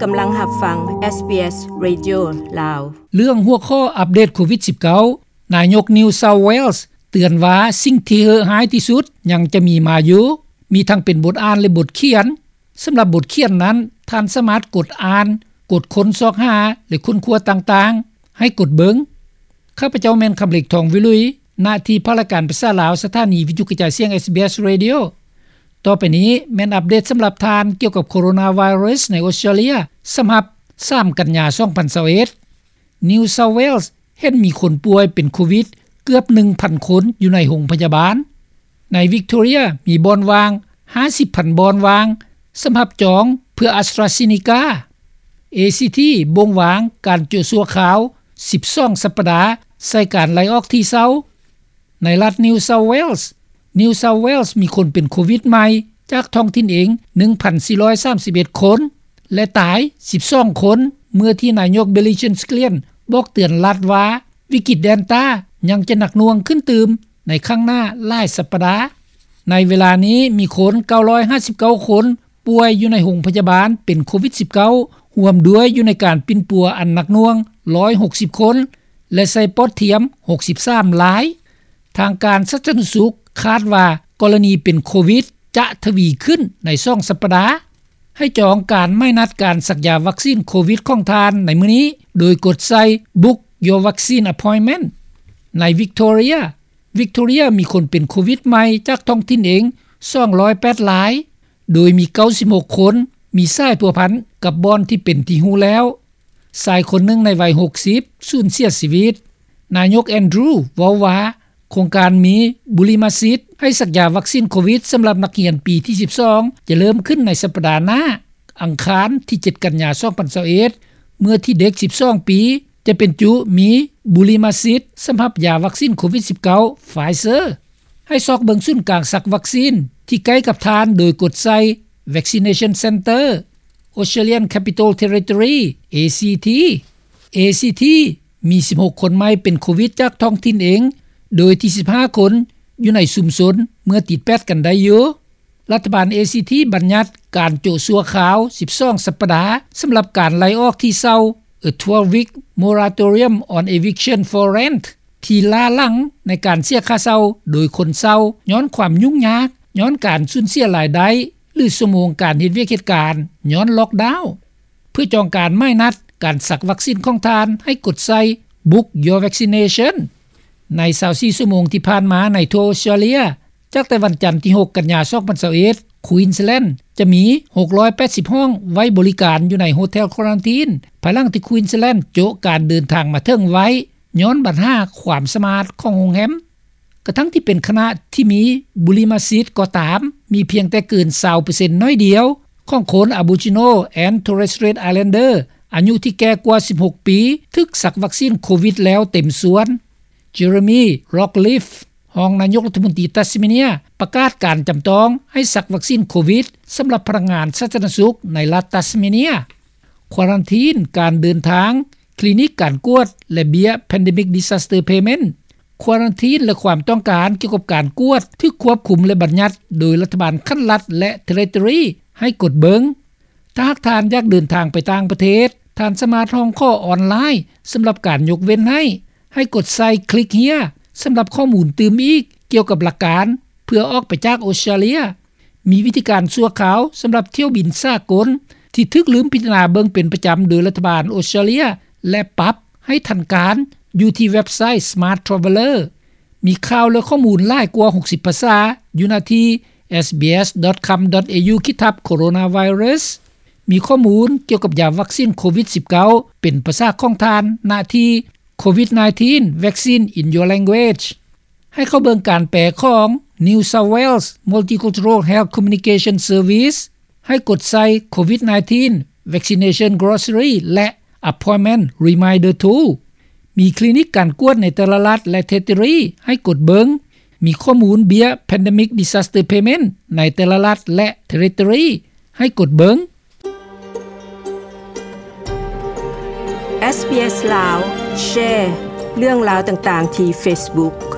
ກຳລັງຮັບຟັງ ເອສບີເອສ ເຣດິໂອ ລາວ. ເລື່ອງຫົວຂໍ້ອັບເດດໂຄວິດສິບເກົ້າ ນາຍົກ New South Wales ເຕືອນວ່າສິ່ງທີ່ເຫີະຮ້າຍທີ່ສຸດຍັງຈະມີມາຢູ່, ມີທັງເປັນບົດອ່ານ ແລະ ບົດຂຽນ. ສຳລັບບົດຂຽນນັ້ນ, ທ່ານສາມາດກົດອ່ານ, ກົດຄົ້ນຊອກຫາ ແລະ ຄົ້ນຄວ້າຕ່າງໆ ໃຫ້ກົດເບິ່ງ. ຂ້າພະເຈົ້າແມ່ນ ຄຳເລັກ ທອງວິລຸຍ, ໜ້າທີ່ພາກລາຍການພາສາລາວ ສະຖານີວິທະຍຸກະຈາຍສຽງ ເອສບີເອສ ເຣດິໂອ. ຕໍ່ໄປນີ້ແມ່ນອັບເດດສຳລັບທ່ານກ່ຽວກັບໂຄໂຣນາໄວຣັສໃນອົດສະເຕຣເລັຍ ສຳລັບສາມກັນຍາ ສອງພັນຊາວເອັດ. New South Wales ເຫັນມີຄົນປ່ວຍເປັນໂຄວິດເກືອບໜຶ່ງພັນຄົນຢູ່ໃນໂຮງພະຍາບານ. ໃນ Victoria ມີບ່ອນວ່າງຫ້າສິບພັນບ່ອນວ່າງສຳລັບຈອງເພື່ອ AstraZeneca. ເອຊີທີ ບົ່ງວາງການໂຈະຊົ່ວຄາວສິບສອງສັບປະດາໃສ່ການໄລ່ອອກທີ່ເຊົາ. ໃນລັດ New South Wales, New South Wales ມີຄົນເປັນໂຄວິດໃໝ່ຈາກທ້ອງຖິ່ນເອງ ໜຶ່ງພັນສີ່ຮ້ອຍສາມສິບເອັດຄົນ ແລະ ຕາຍສິບສອງຄົນ ເມື່ອທີ່ນາຍົກ Billy Jean Scullion ບອກເຕືອນລັດວ່າ ວິກິດ Delta ຍັງຈະໜັກໜ່ວງຂຶ້ນຕື່ມໃນຂ້າງໜ້າຫຼາຍສັບປະດາ. ໃນເວລານີ້ມີຄົນເກົ້າຮ້ອຍຫ້າສິບເກົ້າຄົນ ປ່ວຍຢູ່ໃນໂຮງພະຍາບານເປັນໂຄວິດສິບເກົ້າ ຮ່ວມດ້ວຍຢູ່ໃນການປິ່ນປົວອັນໜັກໜ່ວງ ຮ້ອຍຫົກສິບຄົນ ແລະ ໃສ່ປອດທຽມ ຫົກສິບສາມລາຍ. ທາງການສາທາລະນະສຸກຄາດວ່າ ກໍລະນີເປັນໂຄວິດຈະທະວີຂຶ້ນໃນສອງສັບປະດາ. ໃຫ້ຈອງການໝາຍນັດການສັກຢາວັກຊີນໂຄວິດຂອງທ່ານໃນມື້ນີ້ ໂດຍກົດໃສ່ Book Your Vaccine Appointment. ໃນ Victoria, Victoria ມີຄົນເປັນໂຄວິດໃໝ່ຈາກທ້ອງຖິ່ນເອງ ສອງຮ້ອຍແປດລາຍ ໂດຍມີເກົ້າສິບຫົກຄົນມີສາຍພົວພັນກັບບ່ອນທີ່ເປັນທີ່ຮູ້ແລ້ວ. ຊາຍຄົນໜຶ່ງໃນໄວຫົກສິບສູນເສຍຊີວິດ. ນາຍົກ Andrew ເວົ້າວ່າ ໂຄງການມີບຸລິມະສິດໃຫ້ສັກຢາວັກຊີນໂຄວິດສຳລັບນັກຮຽນປີທີສິບສອງ ຈະເລີ່ມຂຶ້ນໃນສັບປະດາໜ້າ ອັງຄານທີເຈັດກັນຍາ ສອງພັນຊາວເອັດ ເມື່ອທີ່ເດັກສິບສອງປີ ຈະເປັນຈຸມີບຸລິມະສິດສຳລັບຢາວັກຊີນໂຄວິດສິບເກົ້າ Pfizer. ໃຫ້ຊອກເບິ່ງສູນກາງສັກວັກຊີນທີ່ໃກ້ກັບທ່ານໂດຍກົດໃສ່ Vaccination Center, Australian Capital Territory, ACT. ACT ມີສິບຫົກຄົນໃໝ່ເປັນໂຄວິດຈາກທ້ອງຖິ່ນເອງ ໂດຍທີ່ສິບຫ້າຄົນຢູ່ໃນຊຸມຊົນເມື່ອຕິດແປດກັນໄດ້ຢູ່. ລັດຖະບານ ACT ບັນຍັດການໂຈະຊົ່ວຄາວສິບສອງສັບປະດາສຳລັບການໄລ່ອອກທີ່ເຊົ່າ A twelve-week moratorium on eviction for rent ທີ່ລ້າຫຼັງໃນການເສຍຄ່າເຊົ່າໂດຍຄົນເຊົ່າ ຍ້ອນຄວາມຫຍຸ້ງຍາກ ຍ້ອນການສູນເສຍລາຍໄດ້ ຫຼື ຊົ່ວໂມງການເຮັດວຽກເຮັດການ ຍ້ອນລ໊ອກດາວ. ເພື່ອຈອງການໝາຍນັດການສັກວັກຊີນຂອງທ່ານ ໃຫ້ກົດໃສ່ Book Your Vaccination. ໃນຊາວສີ່ຊົ່ວໂມງທີ່ຜ່ານມາໃນທົ່ວອົດສະຕຣາເລຍ, ຈາກແຕ່ວັນຈັນທີຫົກກັນຍາ ສອງພັນຊາວເອັດ Queensland ຈະມີຫົກຮ້ອຍແປດສິບຫ້ອງໄວ້ບໍລິການຢູ່ໃນໂຮເທວຄວາຣັນທີນ ພາຍຫຼັງທີ່ Queensland ໂຈະການເດີນທາງມາເຖິງໄວ້ ຍ້ອນບັນຫາຄວາມສະອາດຂອງໂຮງແຮມ. ກະທັ່ງທີ່ເປັນຂະນະທີ່ມີບຸລິມະສິດກໍຕາມ, ມີພຽງແຕ່ເກີນຊາວເປີເຊັນໜ້ອຍດຽວຂອງຄົນ Aboriginal and Torres Strait Islander ອາຍຸທີ່ແກ່ກວ່າສິບຫົກປີ ຖືກສັກວັກຊີນໂຄວິດແລ້ວເຕັມສ່ວນ. Jeremy Rockliff ຮອງນາຍົກລັດຖະມົນຕີຕັດສະເມເນຍ ປະກາດການຈຳຕ້ອງໃຫ້ສັກວັກຊີນໂຄວິດສຳລັບພະນັກງານສາທາລະນະສຸກໃນລັດຕັດສະເມເນຍ. ຄວາຣັນທີນການເດີນທາງ, ຄລີນິກການກວດ ແລະ ເບ້ຍ Pandemic Disaster Payment. ຄວາຣັນທີນ ແລະ ຄວາມຕ້ອງການກ່ຽວກັບການກວດ ຖືກຄວບຄຸມ ແລະ ບັນຍັດໂດຍລັດຖະບານຂັ້ນລັດ ແລະ ເທຣິໂຕຣີ ໃຫ້ກົດເບິ່ງ. ຖ້າຫາກທ່ານຢາກເດີນທາງໄປຕ່າງປະເທດ, ທ່ານສາມາດຮ້ອງຂໍອອນລາຍສຳລັບການຍົກເວັ້ນໃຫ້. ໃຫ້ກົດໃສ່ Click Here ສຳລັບຂໍ້ມູນຕື່ມອີກກ່ຽວກັບຫຼັກການເພື່ອອອກໄປຈາກອົດສະຕຣາເລຍ. ມີວິທີການຊົ່ວຄາວສຳລັບຖ້ຽວບິນສາກົນທີ່ຖືກລືມພິຈາລະນາເບິ່ງເປັນປະຈຳໂດຍລັດຖະບານອົດສະຕຣາເລຍ ແລະ ປັບໃຫ້ທັນການຢູ່ທີ່ເວັບໄຊ Smart Traveller. ມີຂ່າວ ແລະ ຂໍ້ມູນຫຼາຍກວ່າຫົກສິບພາສາຢູ່ໜ້າທີ່ SBS dot com dot au ຂີດທັບ Coronavirus. ມີຂໍ້ມູນກ່ຽວກັບຢາວັກຊີນໂຄວິດສິບເກົ້າເປັນພາສາຂອງທ່ານ ໜ້າທີ່ COVID nineteen Vaccine in Your Language. ໃຫ້ເຂົ້າເບິ່ງການແປຂອງ New South Wales Multicultural Health Communication Service. ໃຫ້ກົດໃສ່ COVID nineteen Vaccination Glossary ແລະ Appointment Reminder Tool. ມີຄລີນິກການກວດໃນແຕ່ລະລັດ ແລະ ເທຣິໂຕຣີ ໃຫ້ກົດເບິ່ງ. ມີຂໍ້ມູນເບ້ຍ Pandemic Disaster Payment ໃນແຕ່ລະລັດ ແລະ ເທຣິໂຕຣີ ໃຫ້ກົດເບິ່ງ. ເອສບີເອສ ລາວ ແຊເລື່ອງລາວຕ່າງໆທີ່ເຟສບຸກ.